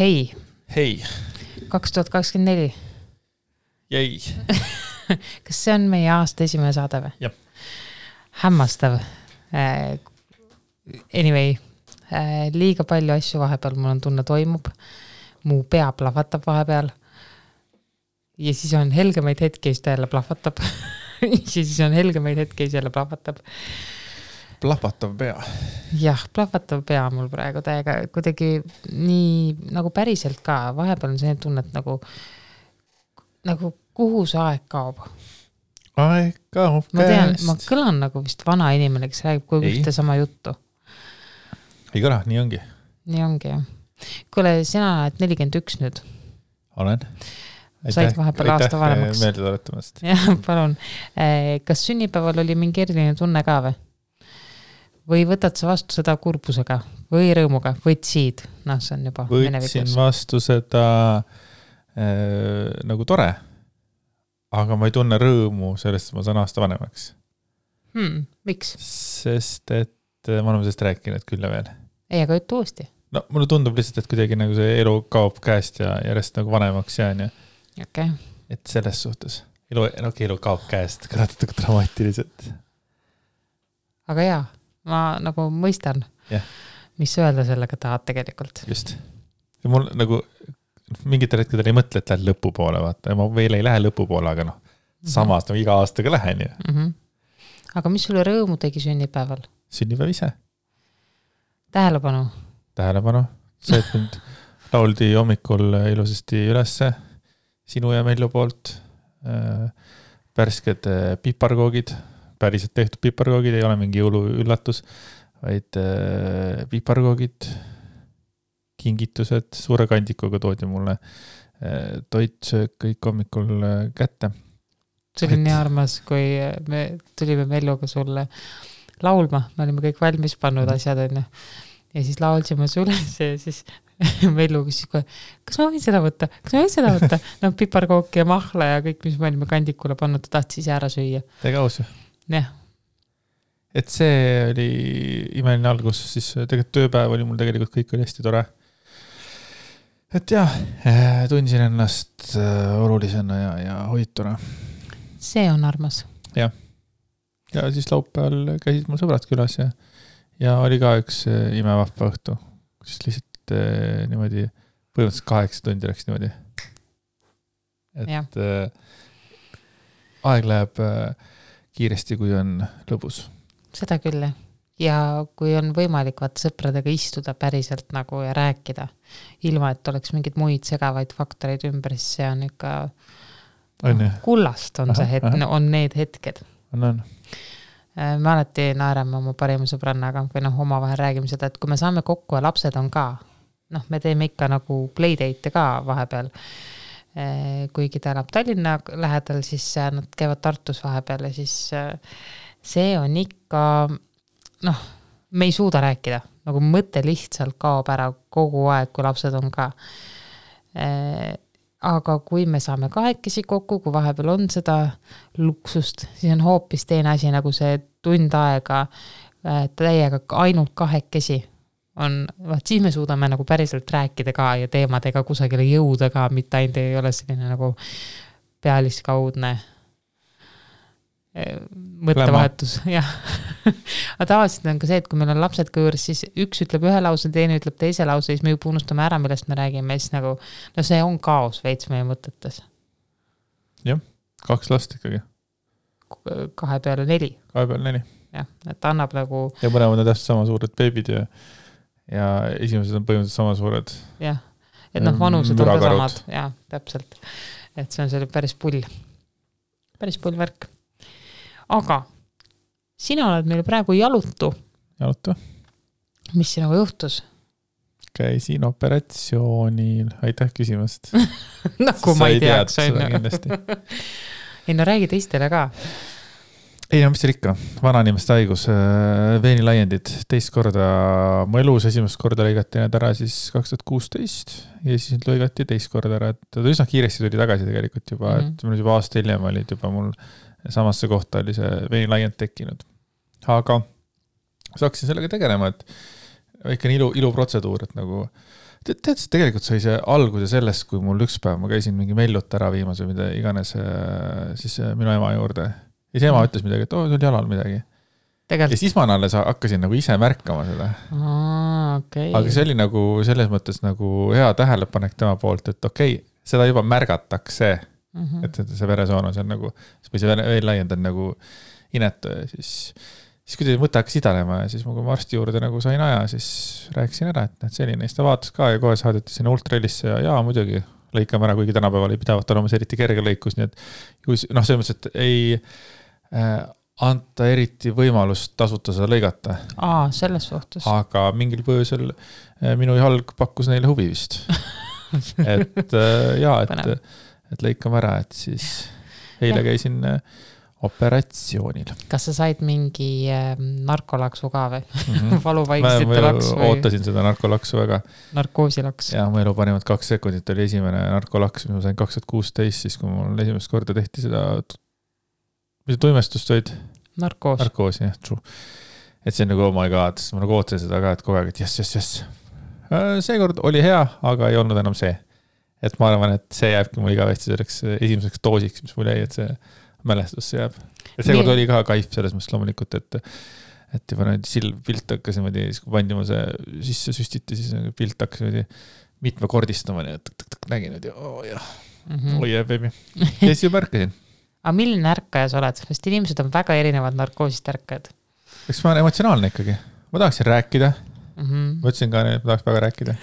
Hei. Hei. 2024. Jäi. Kas see on meie aasta esimene saade või? Jah. Hämmastav. Anyway, liiga palju asju vahepeal mul on tunne toimub. Mu pea plahvatab vahepeal. Ja siis on helgemaid hetki, siis ta jälle plahvatab. Ja siis on helgemaid hetki, siis jälle plahvatab. Plahvatav pea. Jah, plahvatav pea mul praegu täiega kuidagi nii nagu päriselt ka. Vahepeal on see tunne, et nagu kuhu see aeg kaob. Aeg kaob käest. Ma tean, ma kõlan nagu vist vana inimene, kes räägib kogu ühte sama juttu. Ei kõla, nii ongi. Nii ongi, jah. Kuule, sina oled 41 nüüd. Olen. Said vahepeal aasta vanemaks. Meelde tuletamast. Jah, palun. Kas sünnipäeval oli mingi eriline tunne ka või võtad sa vastu seda kurbusega või rõõmuga, võtsid? No, see on juba võtsin vastu seda nagu tore, aga ma ei tunne rõõmu sellest, et ma saan aasta vanemaks. Miks? Sest, et ma olen sellest rääkinud küll ja veel. Ei, aga ütle uuesti. No, mulle tundub lihtsalt, et kuidagi nagu see elu kaob käest ja järjest nagu vanemaks jään ja okay. Et selles suhtes. Elu kaob käest, kõratud dramaatiliselt. Aga jaa, ma nagu mõistan, mis öelda sellega tahad tegelikult. Just. Ja mul nagu mingitel hetkedel ei mõtle, et lähed lõpu poole, vaata. Ma veel ei lähe lõpu poole, aga samas nagu iga aastaga lähen ju. Aga mis sulle rõõmu tegi sünnipäeval? Sünnipäev ise. Tähelepanu. See, et mind lauldi hommikul ilusasti ülesse sinu ja Mellu poolt. Pärsked piparkoogid, päriselt tehtud piparkoogid, ei ole mingi jõuluüllatus, vaid piparkoogid, kingitused, suure kandikuga toodi mulle toitsöök kõik hommikul kätte. See oli nii armas, kui me tulime Melluga sulle laulma, me olime kõik valmis pannud asjad enne. Ja siis laulsime sulle ja siis Mellu küsis, kas ma võin seda võtta? No piparkooki ja mahla ja kõik, mis me olime kandikule pannud, ta tahtis ise ära süüa. Tega aus ju. Jah. Et see oli imeline algus, siis tegelikult tööpäev oli mul tegelikult kõik oli hästi tore. Et jah, tundsin ennast olulisena ja hoituna. See on armas. Ja siis laupäeval käisid mul sõbrad külas ja oli ka üks imevahva õhtu, kus lihtsalt niimoodi põhimõtteliselt 8 tundi läks niimoodi. Et aeg läheb kiiresti, kui on lõbus. Seda küll. Ja kui on võimalik sõpradega istuda päriselt nagu ja rääkida, ilma et oleks mingid muid segavaid faktoreid ümber, siis see on ikka kullast on on need hetked. On. Me alati naerame oma parima sõbrannaga või omavahel räägime seda, et kui me saame kokku ja lapsed on ka, me teeme ikka nagu playdate ka vahepeal. Kuigi ta elab Tallinna lähedal, siis nad käivad Tartus vahepeal ja siis see on ikka, me ei suuda rääkida, nagu mõte lihtsalt kaob ära kogu aeg, kui lapsed on ka. Aga kui me saame kahekesi kokku, kui vahepeal on seda luksust, siis on hoopis teine asi, nagu see tund aega täiega ainult kahekesi on, siis me suudame nagu päriselt rääkida ka ja teemadega kusagile jõuda ka, mitte ainult ei ole selline nagu pealiskaudne mõttevahetus. Aga tavaliselt on ka see, et kui meil on lapsed kõõrs, siis üks ütleb ühe lause, teine ütleb teise lause, siis me juba unustame ära, millest me räägime. Siis nagu, see on kaos veits meie mõtetes. Jah, 2 last ikkagi. 2 peale 4. 2 peale 4. Jah, et annab nagu... Ja mõlemad on täpselt sama suured beebid ja esimesed on põhimõtteliselt sama suured. Jah, et vanused on ka samad. Jah, täpselt. Et see on selle päris pull värk. Aga sina oled meil praegu jalutu. Mis sinuga juhtus? Käisin operatsioonil. Aitäh küsimast. Nagu ma ei teaks. Ei räägi teistele ka. Ei, mis seal ikka. Vanainimeste haigus. Veenilaiendid. Teist korda mu elus. Esimest korda lõigati need ära siis 2016 ja siis nüüd lõigati teist korda ära. Et üsna kiiresti tuli tagasi tegelikult juba. Et mul juba aasta hiljem olid juba mul samasse kohta oli see veenilaiend tekkinud. Aga saaksin sellega tegelema, et ikka iluprotseduur, et nagu Tead, tegelikult sai see alguse sellest, kui mul üks päev ma käisin mingi Mellut ära viimas või mida iganes siis minu ema juurde. Ja siis ema ütles midagi, et sul jalal midagi. Ja siis ma alles hakkasin nagu ise märkama seda. Okay. Aga see oli nagu selles mõttes nagu hea tähelepanek tema poolt, et okei, seda juba märgatakse, et see veresoon on seal nagu, või see veel laiend on nagu inetu ja siis kui mõte hakkas idanema ja siis kui ma arsti juurde nagu sain aja, siis rääkisin ära, et selline, siis ta vaatas ka ja kohe saadeti sinna ultralisse ja muidugi lõikame ära, kuigi tänapäeval ei pidavat olema see eriti kerge lõikus, nii et selles mõttes, et ei anta eriti võimalust tasuta seda lõigata. Selles suhtes. Aga mingil põhjusel minu jalg pakkus neile huvi vist. et lõikame ära, et siis eile käisin operatsioonil. Kas sa said mingi narkolaksu ka või? Valuvaigistite laks või? Ma ootasin seda narkolaksu väga. Narkoosilaks. Ja mu elu parimad 2 sekundit oli esimene narkolaks, mis ma sain 2016, siis kui mul esimest korda tehti seda, mis tuimestust olid? Narkoos, jah, true. Et see on nagu, oh my god, ma nagu ootasin seda ka, et kogu aeg, et yes. Seekord oli hea, aga ei olnud enam see. Et ma arvan, et see jääbki mul igavesti selleks esimeseks doosiks, mis mul jäi, et see mälestusse jääb. Ja seekord oli ka kaif selles mõttes loomulikult, et juba pilt hakkas niimoodi, siis kui pandi ma see sisse süstiti, siis pilt hakkas niimoodi mitmekordistama, nii et nägin, et jah, baby. Ja siis ju märkasin. Aga milline ärkaja sa oled? Sest inimesed on väga erinevad narkoosist ärkajad. Eks ma olen emotsionaalne ikkagi. Ma tahaksin rääkida. Ma ütlesin ka, et ma tahaks väga rääkida.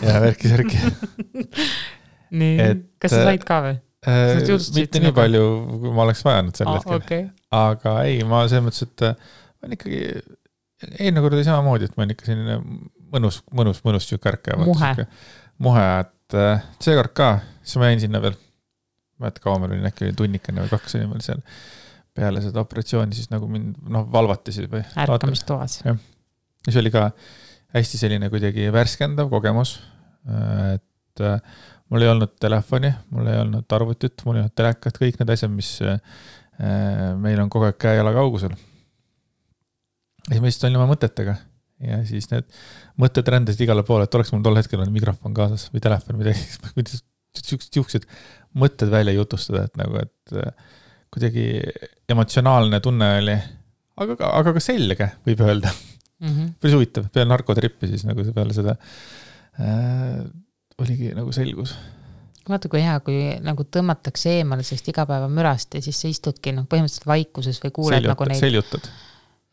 Ja värki. Nii, kas sa said ka või? Mitte nii palju, kui ma oleks vajanud sel hetkel. Okay. Aga ei, ma selles mõttes, et ma olen ikkagi eelmine kord oli samamoodi, et ma olen ikka selline mõnus ärkaja. Muhe, et seekord ka, siis ma jäin sinna veel. Ma et kaua meil oli äkki tunnikene või 2 oli seal peale seda operatsiooni, siis nagu mind valvati siis või. Ärkamistoas. Ja siis oli ka hästi selline kuidagi värskendav kogemus, et mul ei olnud telefoni, mul ei olnud arvutit, mul ei olnud telekat, kõik need asjad, mis meil on kogu aeg käe-jala kaugusel. Ja siis ma lihtsalt olin oma mõtetega ja siis need mõtted rändasid igale poole, et oleks mul tol hetkel on mikrofon kaasas või telefon või midagi, siuksed mõtted välja jutustada, et nagu, et kuidagi emotsionaalne tunne oli, aga ka selge, võib öelda. Päris huvitav, peale narkotrippi siis nagu peale seda oligi nagu selgus. Vaata, kui hea, kui nagu tõmmatakse eemale sellest igapäeva mürast ja siis sa istudki põhimõtteliselt vaikuses või kuuled nagu neid. Seljutad.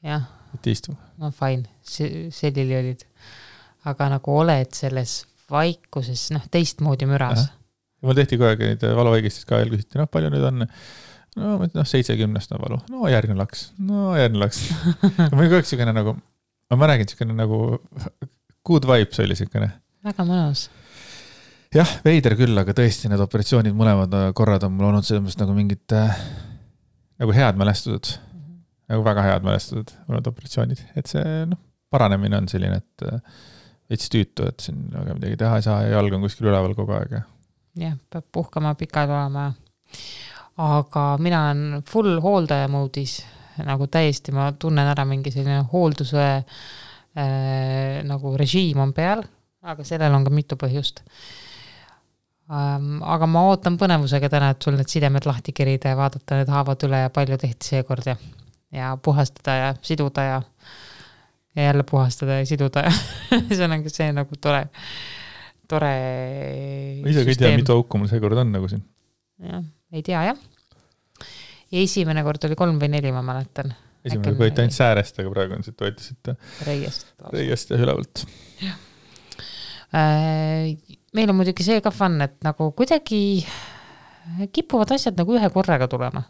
Jah. Et istu. No fine, sellili olid. Aga nagu oled selles vaikuses, teistmoodi müras. Mul tehti kogu aeg neid valuvaigistist ka veel küsiti, palju nüüd on? 70 on valu. Järgmine laks. Ma olin kogu aeg selline nagu, ma räägin selline nagu good vibes oli selline. Väga mõnus. Jah, veider küll, aga tõesti need operatsioonid mõlemad korrad on mul olnud selles nagu mingid nagu head mälestused. Nagu väga head mälestused mõned operatsioonid. Et see paranemine on selline, et veits tüütu, et siin väga midagi teha ei saa ja jalg on kuskil üleval kogu aeg. Jah, peab puhkama pikad olema. Aga mina olen full hooldaja moodis, nagu täiesti ma tunnen ära mingi selline hoolduse nagu režiim on peal, aga sellel on ka mitu põhjust. Aga ma ootan põnevusega täna, et sul need sidemed lahti kerida ja vaadata need haavad üle ja palju tehti seekord ja puhastada ja siduda ja jälle puhastada ja siduda ja see on see nagu tore ma ise ei tea, mitu auku mul seekord on nagu siin. Jah, ei tea, jah. Ja esimene kord oli 3 või 4, ma mäletan. Esimene võeti ainult säärest, aga praegu on siit võetisite reiest ja ülevalt. Jah. Meil on muidugi see ka fun, et nagu kuidagi kipuvad asjad nagu ühe korraga tulema.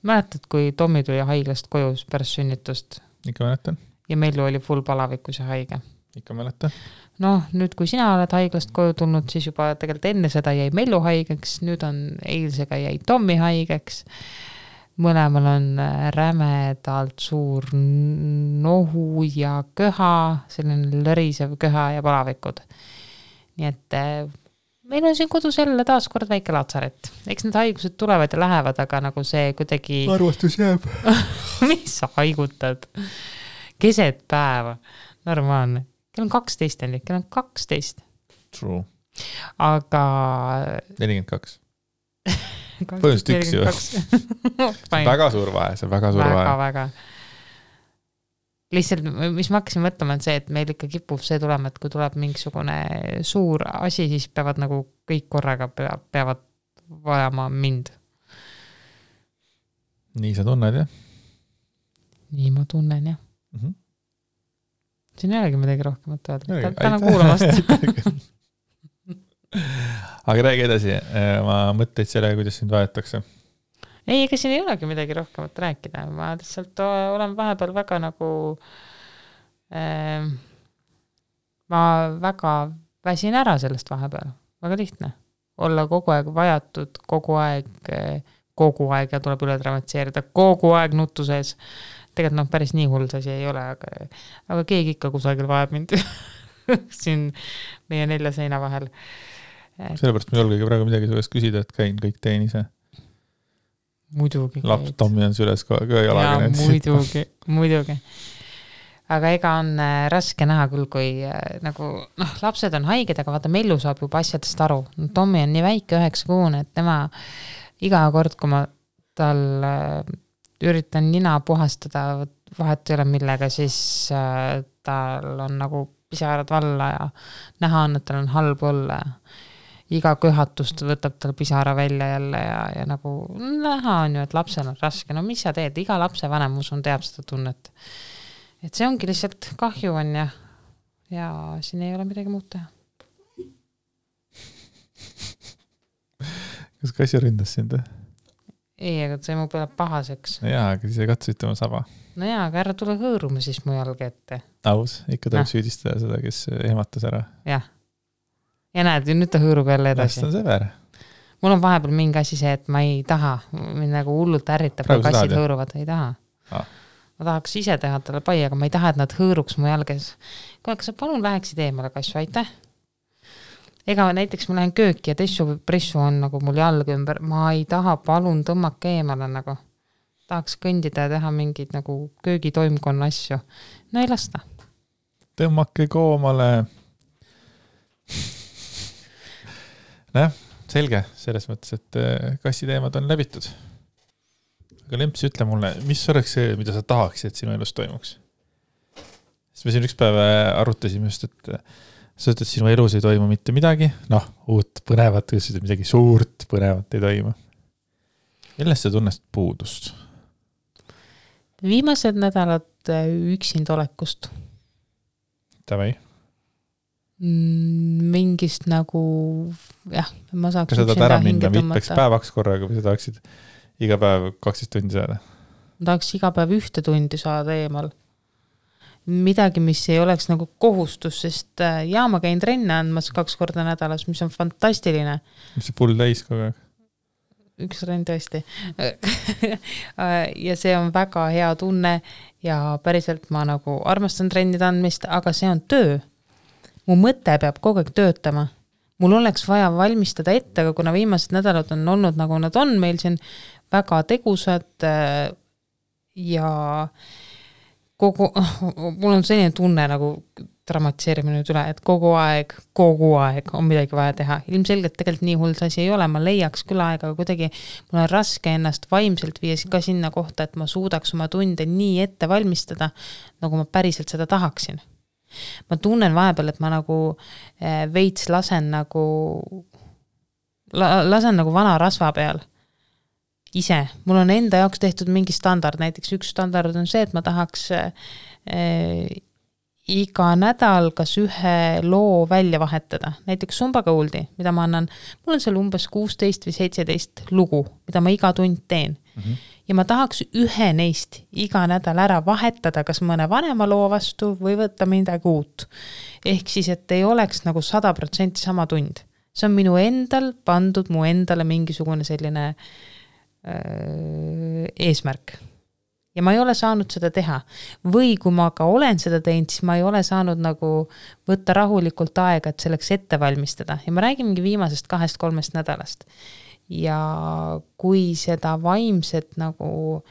Mäletad, kui Tommi tuli haiglast koju pärast sünnitust? Ikka mäletan. Ja Mellu oli full palavikus ja haige. Ikka mäletan. Nüüd kui sina oled haiglast koju tulnud, siis juba tegelikult enne seda jäi Mellu haigeks, nüüd on eilsega jäi Tommi haigeks. Mõlemal on rämedalt suur nohu ja köha, selline lõrisev köha ja palavikud. Nii et meil on siin kodus jälle taas kord väike laatsaret. Eks need haigused tulevad ja lähevad, aga nagu see kuidagi... Arvastus jääb. Mis sa haigutad? Keset päeva. Normaalne. Kell on 12, kell on 12. True. aga 42. Põhimõtteliselt üks ju. Väga suur vahe, see on väga suur vahe. Väga. Lihtsalt, mis ma hakkasin mõtlema, on see, et meil ikka kipub see tulema, et kui tuleb mingisugune suur asi, siis peavad nagu kõik korraga peavad vajama mind. Nii sa tunned, jah? Nii ma tunnen, jah. Mm-hmm. Siin ei olegi midagi rohkemat öelda. Tänan kuulamast. Aga räägi edasi, ma mõtleid selle, kuidas sind vajatakse. Ei, ega siin ei olegi midagi rohkemat rääkida. Ma lihtsalt olen vahepeal väga nagu ma väga väsin ära sellest vahepeal. Väga lihtne. Olla kogu aeg vajatud, kogu aeg ja tuleb üle dramatiseerida, kogu aeg nutu sees. Tegelikult päris nii hull asi ei ole, aga keegi ikka kusagil vajab mind siin meie 4 seina vahel. Sellepärast ma julgegi praegu midagi sellest küsida, et käin kõik teen ise. Muidugi. Laps Tommi on süles jalaga. Ja, muidugi. Aga ega on raske näha küll, kui nagu, lapsed on haiged, aga vaata, Mellu saab juba asjadest aru. Tommi on nii väike 9-kuune, et tema iga kord, kui ma tal üritan nina puhastada, vahet ei ole millega, siis tal on nagu pisarad valla ja näha on, et tal on halb olla. Iga köhatust võtab tal pisara välja jälle ja nagu näha on ju, et lapsel on raske. No mis sa teed? Iga lapse vanem usun teab seda tunnet. Et see ongi lihtsalt kahju on ja siin ei ole midagi muud teha. Kas kassi ründas sind? Ei, aga see mu peale pahaseks. Jaa, aga siis ei katsusid oma saba. No jaa, aga ära tule hõõruma siis mu jalga ette. Aus, ikka tuleb süüdistada seda, kes ehmatas ära. Jah. Ja näed, nüüd ta hõõrub jälle edasi. Läst on sõber. Mul on vahepeal mingi asi see, et ma ei taha, mind nagu hullult ärritab, kui kassid hõõruvad, ei taha. Ma tahaks ise teha talle pai, aga ma ei taha, et nad hõõruks mu jalges. Kas sa palun läheksid eemale kassu, aitäh? Ega näiteks ma lähen kööki ja pressu on nagu mul jalg ümber. Ma ei taha, palun tõmmake eemale nagu. Tahaks kõndida ja teha mingid nagu köögitoimkonna asju. No ei lasta. Tõmmake koomale. Selge, selles mõttes, et kassi teemad on läbitud. Aga Lemps, ütle mulle, mis oleks see, mida sa tahaksid, et sinu elus toimuks? Sest me siin üks päev arutasime just, et sa ütled, et sinu elus ei toimu mitte midagi. Uut põnevat, midagi suurt põnevat ei toimu. Millest sa tunnest puudust? Viimased nädalad üksinda olekust. Tavai? Mingist nagu, jah, ma saaks kas sa tahad ära minna mitmeks päevaks korraga või sa tahaksid iga päev 12 tundi saada? Ma tahaks iga päev 1 tundi saada eemal. Midagi, mis ei oleks nagu kohustus, sest ma käin trenne andmas 2 korda nädalas, mis on fantastiline. Mis see full täis kogu aeg? 1 trenn tõesti. Ja see on väga hea tunne ja päriselt ma nagu armastan trennide andmist, aga see on töö. Mu mõte peab kogu aeg töötama. Mul oleks vaja valmistada ette, aga kuna viimased nädalad on olnud nagu nad on, meil siin väga tegusad ja mul on selline tunne nagu dramatiseerime nüüd üle, et kogu aeg on midagi vaja teha. Ilmselgelt tegelikult nii hull asi ei ole, ma leiaks küll aega, aga kuidagi mul on raske ennast vaimselt viia ka sinna kohta, et ma suudaks oma tunde nii ette valmistada, nagu ma päriselt seda tahaksin. Ma tunnen vahepeal, et ma nagu veits lasen nagu vana rasva peal. Ise. Mul on enda jaoks tehtud mingi standard. Näiteks üks standard on see, et ma tahaks iga nädal kas ühe loo välja vahetada. Näiteks Sumbagoldi, mida ma annan. Mul on seal umbes 16 või 17 lugu, mida ma iga tund teen. Mm-hmm. Ja ma tahaks ühe neist iga nädal ära vahetada, kas mõne vanema loo vastu või võtta midagi uut. Ehk siis, et ei oleks nagu 100% sama tund. See on minu endal pandud mu endale mingisugune selline eesmärk. Ja ma ei ole saanud seda teha. Või kui ma ka olen seda teinud, siis ma ei ole saanud nagu võtta rahulikult aega, et selleks ette valmistada. Ja ma räägin mingi viimasest 2-3 nädalast. Ja kui seda vaimset nagu,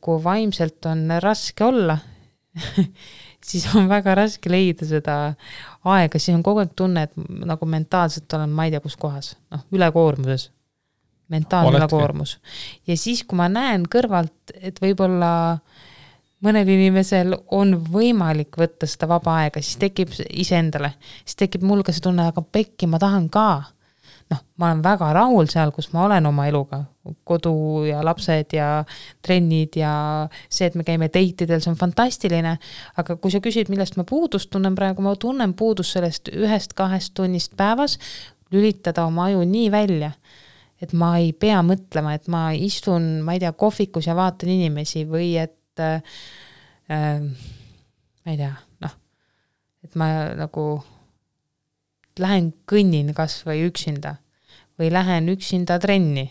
kui vaimselt on raske olla, siis on väga raske leida seda aega, siis on kogu aeg tunne, et nagu mentaalselt olen ma ei tea kus kohas, ülekoormuses, mentaalne ülekoormus. Ja siis, kui ma näen kõrvalt, et võib-olla mõnel inimesel on võimalik võtta seda vaba aega, siis tekib iseendale, siis tekib mul ka see tunne, aga pekki, ma tahan ka. Ma olen väga rahul seal, kus ma olen oma eluga, kodu ja lapsed ja trennid ja see, et me käime date'idel, see on fantastiline, aga kui sa küsid, millest ma puudust tunnen praegu, ma tunnen puudust sellest 1-2 tunnist päevas, lülitada oma aju nii välja, et ma ei pea mõtlema, et ma istun, ma ei tea, kohvikus ja vaatan inimesi või et ma ei tea, et ma nagu lähen kõnnin kas või üksinda või lähen üksinda trenni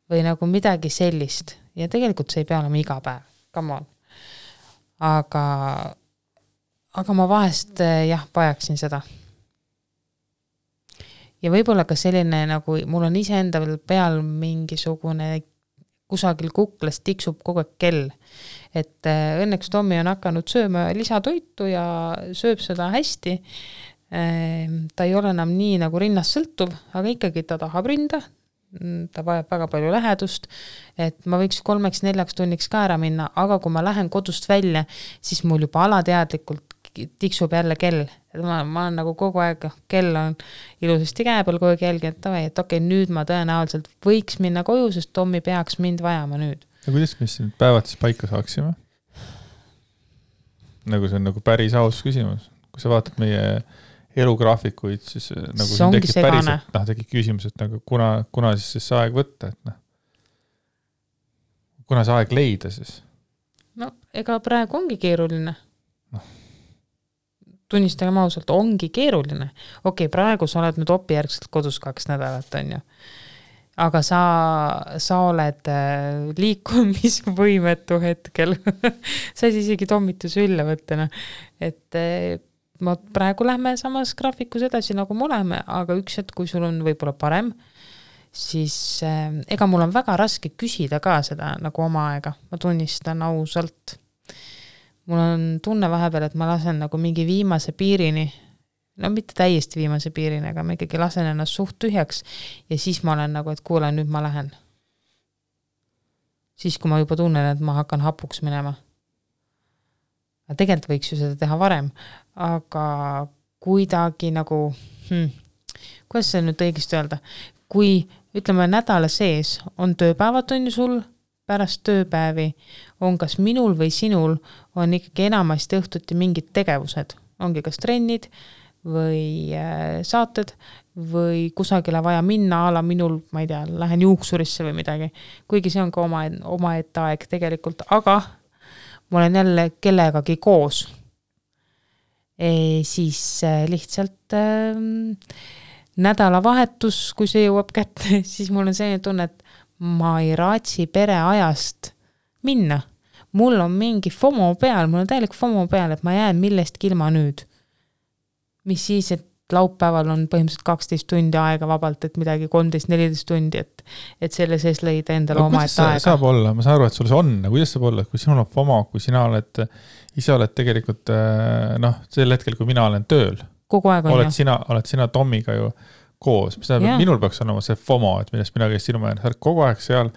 või nagu midagi sellist. Ja tegelikult see ei pea olema iga päev, come on. Aga ma vahest vajaksin seda. Ja võib-olla ka selline nagu, mul on iseenda peal mingisugune kusagil kuklas tiksub kogu aeg kell. Et õnneks Tommi on hakanud sööma lisatoitu ja sööb seda hästi. Ta ei ole enam nii nagu rinnast sõltuv, aga ikkagi ta tahab rinda. Ta vajab väga palju lähedust, et ma võiks 3-4 tunniks ka ära minna, aga kui ma lähen kodust välja, siis mul juba alateadlikult tiksub jälle kell. Ma olen nagu kogu aeg, kell on ilusasti käe peal kogu aeg jälgi, et okei, nüüd ma tõenäoliselt võiks minna koju, sest Tommi peaks mind vajama nüüd. Ja kuidas me siin päevad siis paika saaksime? Nagu see on nagu päris aus küsimus. Kui sa vaatad meie elugraafikuid, siis nagu siin tekib päriselt, tekib küsimus, et nagu kuna siis see aeg võtta, et kuna see aeg leida siis? Ega praegu ongi keeruline. Tunnistagem ausalt, ongi keeruline. Okei, praegu sa oled nüüd opijärgselt kodus 2 nädalat, on ju. Aga sa oled liikumisvõimetu hetkel. Sa ei isegi tommitusi ülle võtta. Et ma praegu lähme samas graafikus edasi, nagu me oleme, aga üks hetk, kui sul on võib-olla parem, siis ega mul on väga raske küsida ka seda nagu oma aega. Ma tunnistan ausalt. Mul on tunne vahepeal, et ma lasen nagu mingi viimase piirini, mitte täiesti viimase piirini, aga ma ikkagi lasen ennast suht tühjaks ja siis ma olen nagu, et kuule, nüüd ma lähen. Siis, kui ma juba tunnen, et ma hakkan hapuks minema. Tegelikult võiks ju seda teha varem, aga kuidagi nagu, kuidas see nüüd õigesti öelda, kui ütleme nädala sees on tööpäevad on ju sul, pärast tööpäevi on kas minul või sinul on ikkagi enamasti õhtuti mingid tegevused, ongi kas trennid või saated või kusagile vaja minna ala minul, ma ei tea, lähen juuksurisse või midagi, kuigi see on ka oma ette aeg tegelikult, aga ma olen jälle kellegagi koos. Siis lihtsalt nädalavahetus, kui see jõuab kätte, siis mul on selline tunne, et ma ei raatsi pereajast minna. Mul on mingi FOMO peal, mul on täielik FOMO peal, et ma jään millestki ilma nüüd. Mis siis, et laupäeval on põhimõtteliselt 12 tundi aega vabalt, et midagi 13-14 tundi, et selle sees leida endale oma ette aega. Saab olla, ma saan aru, et sul see on, kuidas saab olla, kui sinul on FOMO, kui sina ise oled tegelikult, sel hetkel, kui mina olen tööl, kogu aeg on oled sina Tommiga ju koos, mis tähendab, minul peaks olema see FOMO, et millest mina käis sinu määrne, sa oled kogu aeg seal,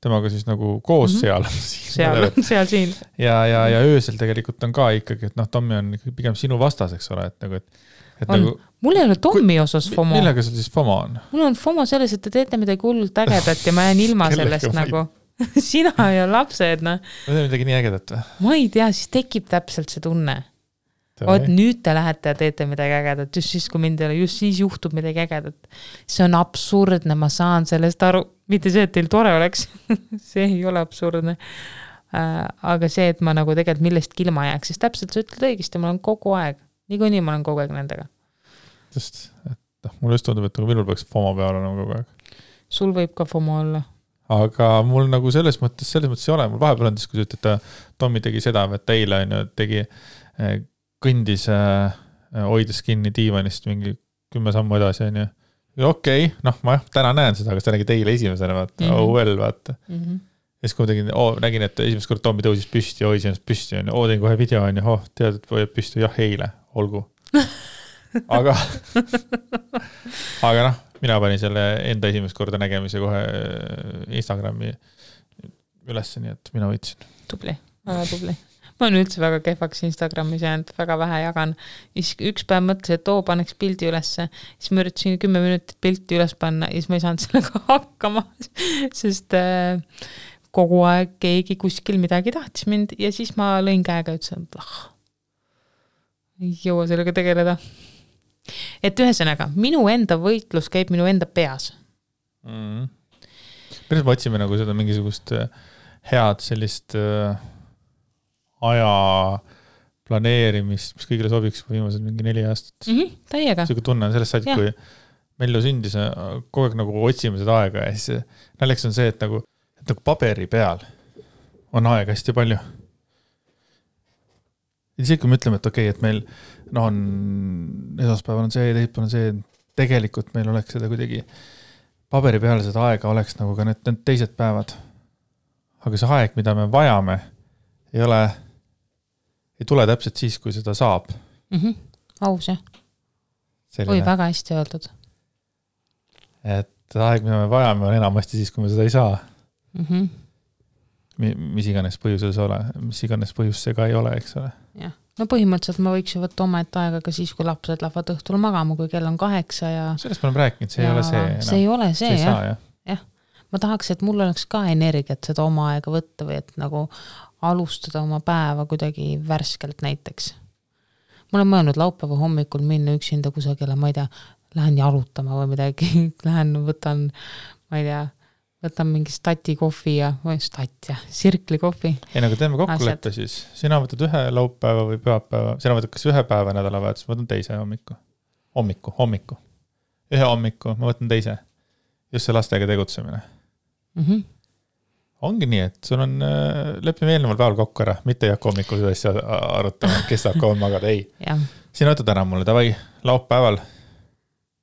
temaga siis nagu koos seal. seal siin. Ja öösel tegelikult on ka ikkagi, et Tommi on pigem sinu vastaseks ole, et nagu, nagu, mul ei ole Tommi osas FOMO. Millega sul siis FOMO on? Mul on FOMO selles, et te teete midagi hullult ägedat ja ma jään ilma sellest nagu. Sina ja lapsed, Ma teen midagi nii ägedat või? Ma ei tea, siis tekib täpselt see tunne. Nüüd te lähete ja teete midagi ägedat, just siis, kui mind ei ole, just siis juhtub midagi ägedat. See on absurdne, ma saan sellest aru. Mitte see, et teil tore oleks. See ei ole absurdne. Aga see, et ma nagu tegelikult millestki ilma jääks, siis täpselt sa ütled õigesti, ma olen kogu aeg. Niikuinii ma olen kogu aeg nendega. Sest, et mul just tundub, et minul peaks FOMO peal olema kogu aeg. Sul võib ka FOMO olla. Aga mul nagu selles mõttes ei ole. Mul vahepeal on, kui sa ütled, et Tommi tegi seda, et eile tegi kõndis hoides kinni diivanist mingi 10 sammu edasi. Okei, ma täna näen seda, aga see nägi teile esimesena, vaata. Oh well, vaata. siis kui ma tegin, nägin, et esimest kord Tommi tõusis püsti ja hoidis ennast püsti, teen kohe video, tead, et hoiab püsti, jah, eile, olgu. aga mina panin selle enda esimest korda nägemise kohe Instagrami ülesse, nii et mina võitsin. Tubli, väga tubli. Ma olen üldse väga kehvaks Instagramis jäänud, väga vähe jagan. Üks päev mõtlesin, et paneks pildi ülesse, siis ma üritasin 10 minutit pilti üles panna ja siis ma ei saanud sellega hakkama, sest kogu aeg keegi kuskil midagi tahtis mind ja siis ma lõin käega ja ütlesin, ei jõua sellega tegeleda. Et ühesõnaga, minu enda võitlus käib minu enda peas. Päris me otsime nagu seda mingisugust head sellist aja planeerimist, mis kõigile sobiks viimased mingi 4 aastat. Täiega. Sellega tunnen sellest said, kui Mellu sündis, kogu aeg nagu otsime seda aega ja siis näljaks on see, et nagu paberi peal on aega hästi palju. Ja siis kui me ütleme, et okei, et meil on esmaspäeval on see, teispäeval on see, tegelikult meil oleks seda kuidagi paberi peal seda aega oleks nagu ka need teised päevad. Aga see aeg, mida me vajame, ei tule täpselt siis, kui seda saab. Aus, jah. Oi, väga hästi öeldud. Et aeg, mida me vajame, on enamasti siis, kui me seda ei saa. Mis iganes põhjusel see ole, mis iganes põhjus see ka ei ole, eks ole. Jah. No põhimõtteliselt ma võiks ju võtta oma aega ka siis, kui lapsed lähevad õhtul magama, kui kell on 8 ja... Sellest me oleme rääkinud, see ei ole see. See ei ole see, jah. Jah. Ma tahaks, et mul oleks ka energiat seda oma aega võtta või et nagu alustada oma päeva kuidagi värskelt näiteks. Ma olen mõelnud laupäeva hommikul minna üksinda kusagile, ma ei tea, lähen jalutama või midagi, lähen võtan, ma ei tea, võtan mingi stati kohvi sirkli kohvi. Ei, nagu teeme kokkuleppe siis. Sina võtad ühe laupäeva või pühapäeva. Sina võtad kas ühe päeva nädalavahetus, ma võtan teise hommiku. Ühe hommiku, ma võtan teise. Just see lastega tegutsemine. Ongi nii, et sul on, lepime eelneval päeval kokku ära, mitte ei hakka hommikul seda asja arutama, kes saab kauem magada, ei. Sina võtad ära mulle, davai, laupäeval,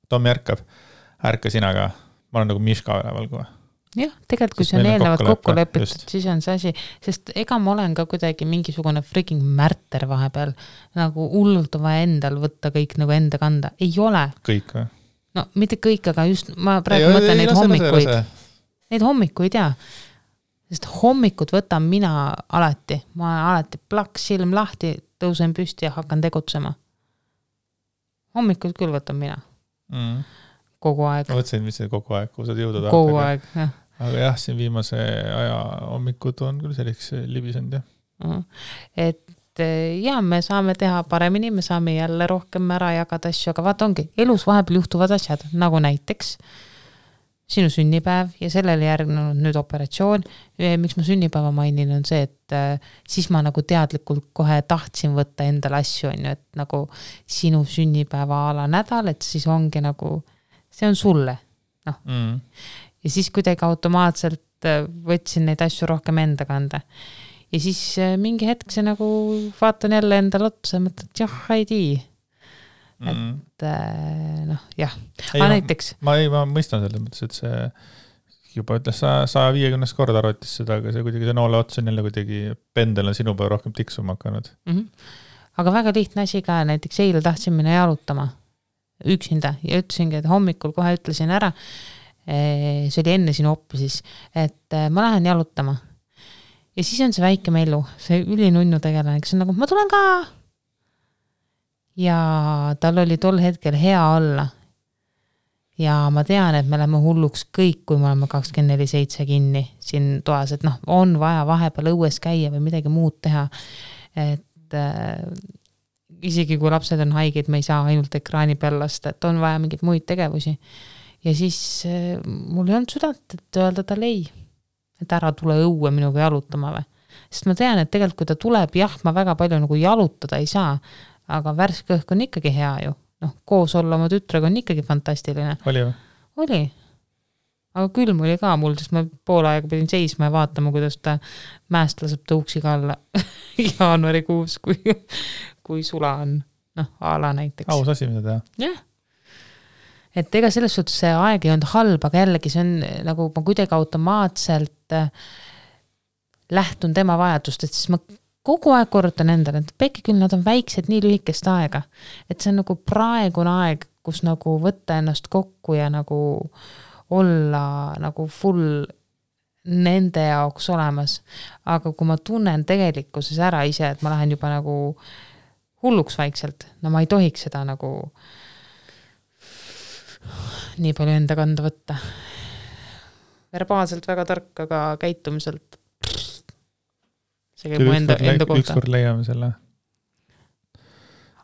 Tommi ärka sina ka, ma olen nagu Miška üleval kohe. Jah, tegelikult kui see on eelnevalt kokku lepitud, siis on see asi, sest ega ma olen ka kuidagi mingisugune freaking märter vahepeal, nagu hullult vaja endal võtta kõik nagu enda kanda. Ei ole. Kõik või? No mitte kõik, aga just ma praegu mõtlen neid hommikuid. Neid hommikuid, jaa. Sest hommikud võtan mina alati. Ma alati plaks silm lahti, tõusen püsti ja hakkan tegutsema. Hommikud küll võtan mina. Kogu aeg. Ma võtsin, mis see kogu aeg, kui saad jõuda tahta. Kogu aeg, jah. Aga jah, siin viimase aja hommikud on küll selliks libisend, jah. Et jah, me saame teha paremini, me saame jälle rohkem ära jagada asju, aga vaata ongi, elus vahepeal juhtuvad asjad, nagu näiteks sinu sünnipäev ja sellele järgnenud nüüd operatsioon. Miks ma sünnipäeva mainin on see, et siis ma nagu teadlikult kohe tahtsin võtta endale asju, et nagu sinu sünnipäeva ala nädal, et siis ongi nagu, see on sulle. No. Ja siis kuidagi automaatselt võtsin neid asju rohkem enda kanda. Ja siis mingi hetk see nagu vaatan jälle endale otsa ja mõtlen, et jah, ei tii. Et jah. Näiteks. Ma mõistan selles mõttes, et see juba ütles 150 korda arvatis seda, aga see kuidagi see noole ots on jälle kuidagi pendel on sinu päev rohkem tiksuma hakanud. Aga väga lihtne asi ka, näiteks eile tahtsin minna jalutama üksinda ja ütlesingi, et hommikul kohe ütlesin ära, see oli enne sinu oppi siis, et ma lähen jalutama. Ja siis on see väike Mellu, see ülinunnu tegelane, kes on nagu, ma tulen ka. Ja tal oli tol hetkel hea olla. Ja ma tean, et me läheme hulluks kõik, kui me oleme 24/7 kinni siin toas, et on vaja vahepeal õues käia või midagi muud teha. Et isegi kui lapsed on haiged, me ei saa ainult ekraani peal lasta, et on vaja mingeid muid tegevusi. Ja siis mul ei olnud südant, et öelda tal ei, et ära tule õue minuga jalutama või. Sest ma tean, et tegelikult kui ta tuleb, jah, ma väga palju nagu jalutada ei saa, aga värske õhk on ikkagi hea ju. Koos olla oma tütrega on ikkagi fantastiline. Oli või? Oli. Aga külm oli ka mul, sest ma pool aega pidin seisma ja vaatama, kuidas ta mäest laseb tõuksiga alla jaanuarikuus, kui sula on. Ala näiteks. Aus asi, mida teha. Jah. Et ega selles suhtes see aeg ei olnud halb, aga jällegi see on nagu ma kuidagi automaatselt lähtun tema vajadustest, siis ma kogu aeg korrutan endale, et pekki küll nad on väiksed nii lühikest aega, et see on nagu praegune aeg, kus nagu võtta ennast kokku ja nagu olla nagu full nende jaoks olemas. Aga kui ma tunnen tegelikkuses ära ise, et ma lähen juba nagu hulluks vaikselt, no ma ei tohiks seda nagu nii palju enda kanda võtta. Verbaalselt väga tark, aga käitumiselt see käib mu enda kohta. Ükskord leiame selle.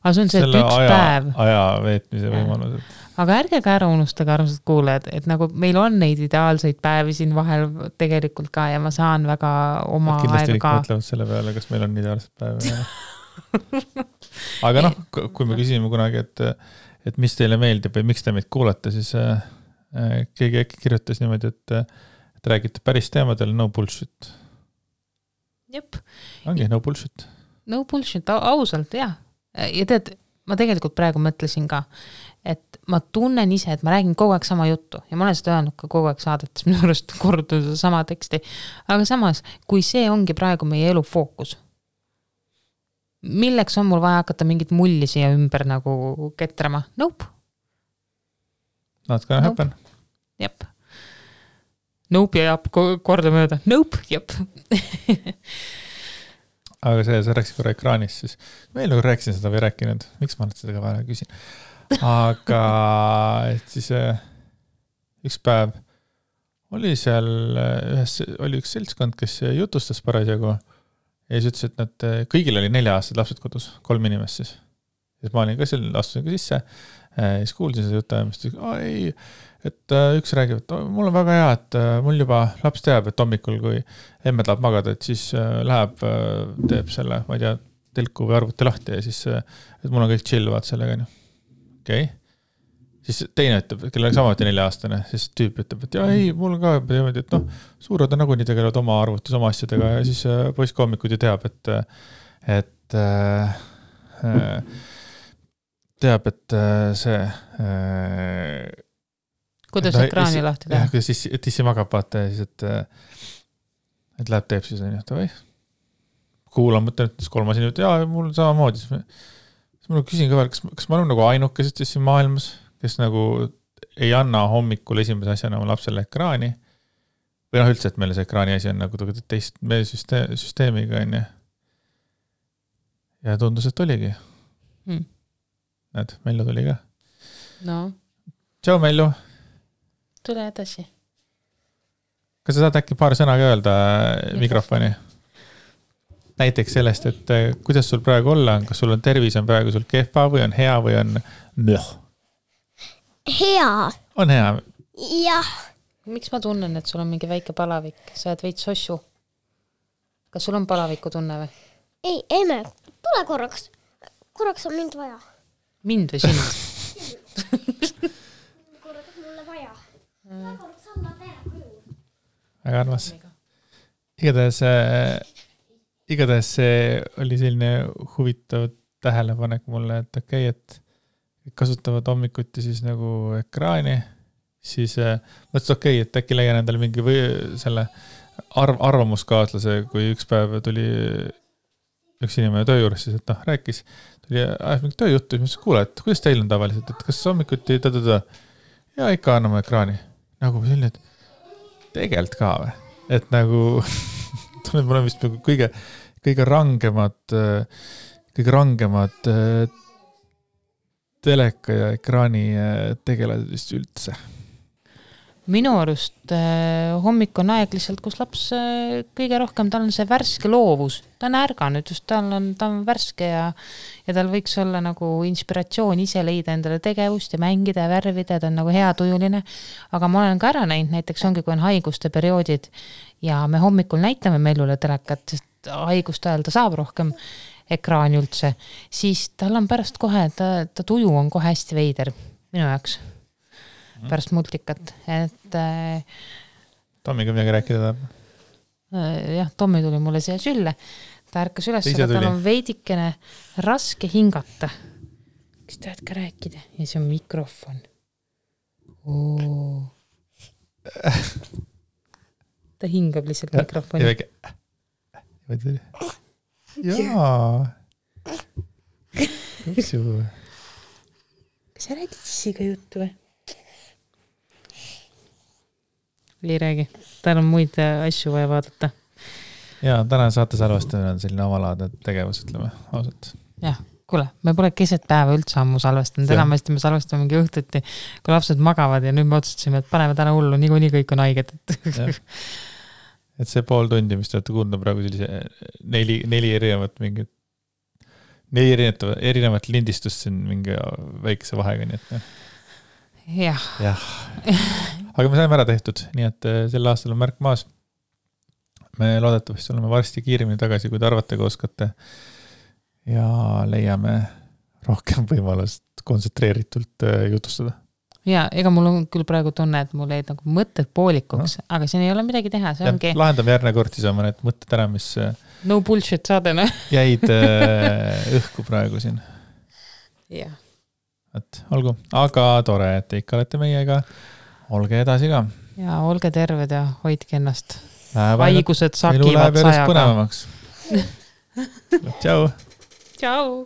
Aga see on see, et üks päev. Aja veetmise võimalused. Aga ärge ka ära unustage, armsad kuulajad, et nagu meil on neid ideaalseid päevi siin vahel tegelikult ka ja ma saan väga oma kindlasti aega ka. Kindlasti mõtlevad selle peale, kas meil on ideaalsed päevi. Aga noh, kui me küsime kunagi, et mis teile meeldib või miks te meid kuulate, siis keegi äkki kirjutas niimoodi, et räägite päris teemadel, no bullshit. Jep. Ongi, no bullshit. No bullshit, ausalt, jah. Ja tead, ma tegelikult praegu mõtlesin ka, et ma tunnen ise, et ma räägin kogu aeg sama juttu ja ma olen seda öelnud ka kogu aeg saadetes, minu arust korrutada sama teksti. Aga samas, kui see ongi praegu meie elu fookus, milleks on mul vaja hakata mingit mulli siia ümber nagu ketrama? Nope. Not gonna happen. Jep. Nope ja jap korda mööda. Nope, jep. Aga sa rääksid korra ekraanis, siis ma nagu rääkisin seda või rääkinud. Miks ma seda ka vahel küsin? Aga et siis üks päev oli seal oli üks seltskond, kes jutustas parasjagu ja siis ütles, et nad kõigil oli 4 aastad lapsed kodus, 3 inimest siis. Ja ma olin ka seal, astusin ka sisse ja siis kuulsin seda jutajamist. Ei, et üks räägib, et mul on väga hea, et mul juba laps teab, et hommikul, kui emme tahab magada, et siis läheb, teeb selle, ma ei tea, telku või arvuti lahti ja siis, et mul on kõik chilluvad sellega. Okei. Siis teine ütleb, kellel on samuti 4-aastane, siis tüüp ütleb, et ei, mul ka teemad, et suured on nagunii tegelevad oma arvutis, oma asjadega ja siis poiss hommikuti teab, et see kuidas ekraani lahti teha? Jah, kuidas tissi magab vaata ja siis, et läheb teeb siis, või kuulan, mõtlen, et 3 inimene, jaa, mul samamoodi. Siis ma küsin ka veel, kas ma olen nagu ainukesed siin maailmas, kes nagu ei anna hommikul esimese asjana oma lapsele ekraani või üldse, et meil see ekraani asi on nagu teist meie süsteemiga on ja tundus, et oligi. Näed, Mellu tuli ka. No. Tšau, Mellu. Tule edasi. Kas sa saad äkki paar sõna ka öelda mikrofoni? Näiteks sellest, et kuidas sul praegu olla on, kas sul on tervis, on praegu sul kehva või on hea või on möh? Hea. On hea? Jah. Miks ma tunnen, et sul on mingi väike palavik? Sa oled veits sossu. Kas sul on palaviku tunne või? Ei, emme, tule korraks. Korraks on mind vaja. Mind või sind? Korraks mulle vaja. Korraks anna tere. Väga armas. Igatahes see oli selline huvitav tähelepanek mulle, et okei, et kasutavad hommikuti siis nagu ekraani, siis mõtlesin okei, et äkki leian endale mingi või selle arvamuskaaslase, kui üks päev tuli üks inimene töö juures, siis et rääkis, tuli mingi tööjuttu, siis kuule, et kuidas teil on tavaliselt, et kas hommikuti ja ikka anname ekraani. Nagu selline, et tegelikult ka või? Et nagu mul on vist kõige rangemad teleka ja ekraani tegelased vist üldse. Minu arust hommik on aeg lihtsalt, kus laps kõige rohkem, tal on see värske loovus. Ta on ärganud, just ta on värske ja tal võiks olla nagu inspiratsioon ise leida endale tegevust ja mängida ja värvida, ta on nagu hea tujuline. Aga ma olen ka ära näinud, näiteks ongi, kui on haiguste perioodid ja me hommikul näitame Mellule telekat, sest haiguste ajal ta saab rohkem ekraani üldse, siis tal on pärast kohe, ta tuju on kohe hästi veider minu jaoks. Pärast multikat, et Tommiga midagi rääkida tahab? Jah, Tommi tuli mulle siia sülle, ta ärkas üles, aga tal on veidikene raske hingata. Kas tahad ka rääkida? Ja see on mikrofon. Ta hingab lihtsalt mikrofoni. jaa. Kupsu. Kas sa räägid sissiga juttu või? Ei räägi. Tal on muid asju vaja vaadata. Jaa, täna saate salvestamine on selline avalaadne tegevus, ütleme ausalt. Jah, kuule, me pole keset päeva üldse ammu salvestanud. Enamasti me salvestame mingi õhtuti, kui lapsed magavad ja nüüd me otsustasime, et paneme täna hullu, niikuinii kõik on haiged. Et see pool tundi, mis te olete kuulnud praegu sellise neli erinevat lindistust siin mingi väikese vahega, nii et jah. Aga me saime ära tehtud, nii et sel aastal on märk maas. Me loodetavasti oleme varsti kiiremini tagasi, kui te arvate, kui oskate ja leiame rohkem võimalust kontsentreeritult jutustada. Ja, ega mul on küll praegu tunne, et mul jäid nagu mõtted poolikuks, aga siin ei ole midagi teha, see ongi. Lahendame järgne kord siis oma need mõtted ära, mis no bullshit saadena jäid õhku praegu siin. Jah. Et olgu, aga tore, et te ikka olete meiega. Olge edasi ka. Ja olge terved ja hoidke ennast. Haigused sakivad sajaga. Elu läheb järjest põnevamaks. Tšau. Tšau.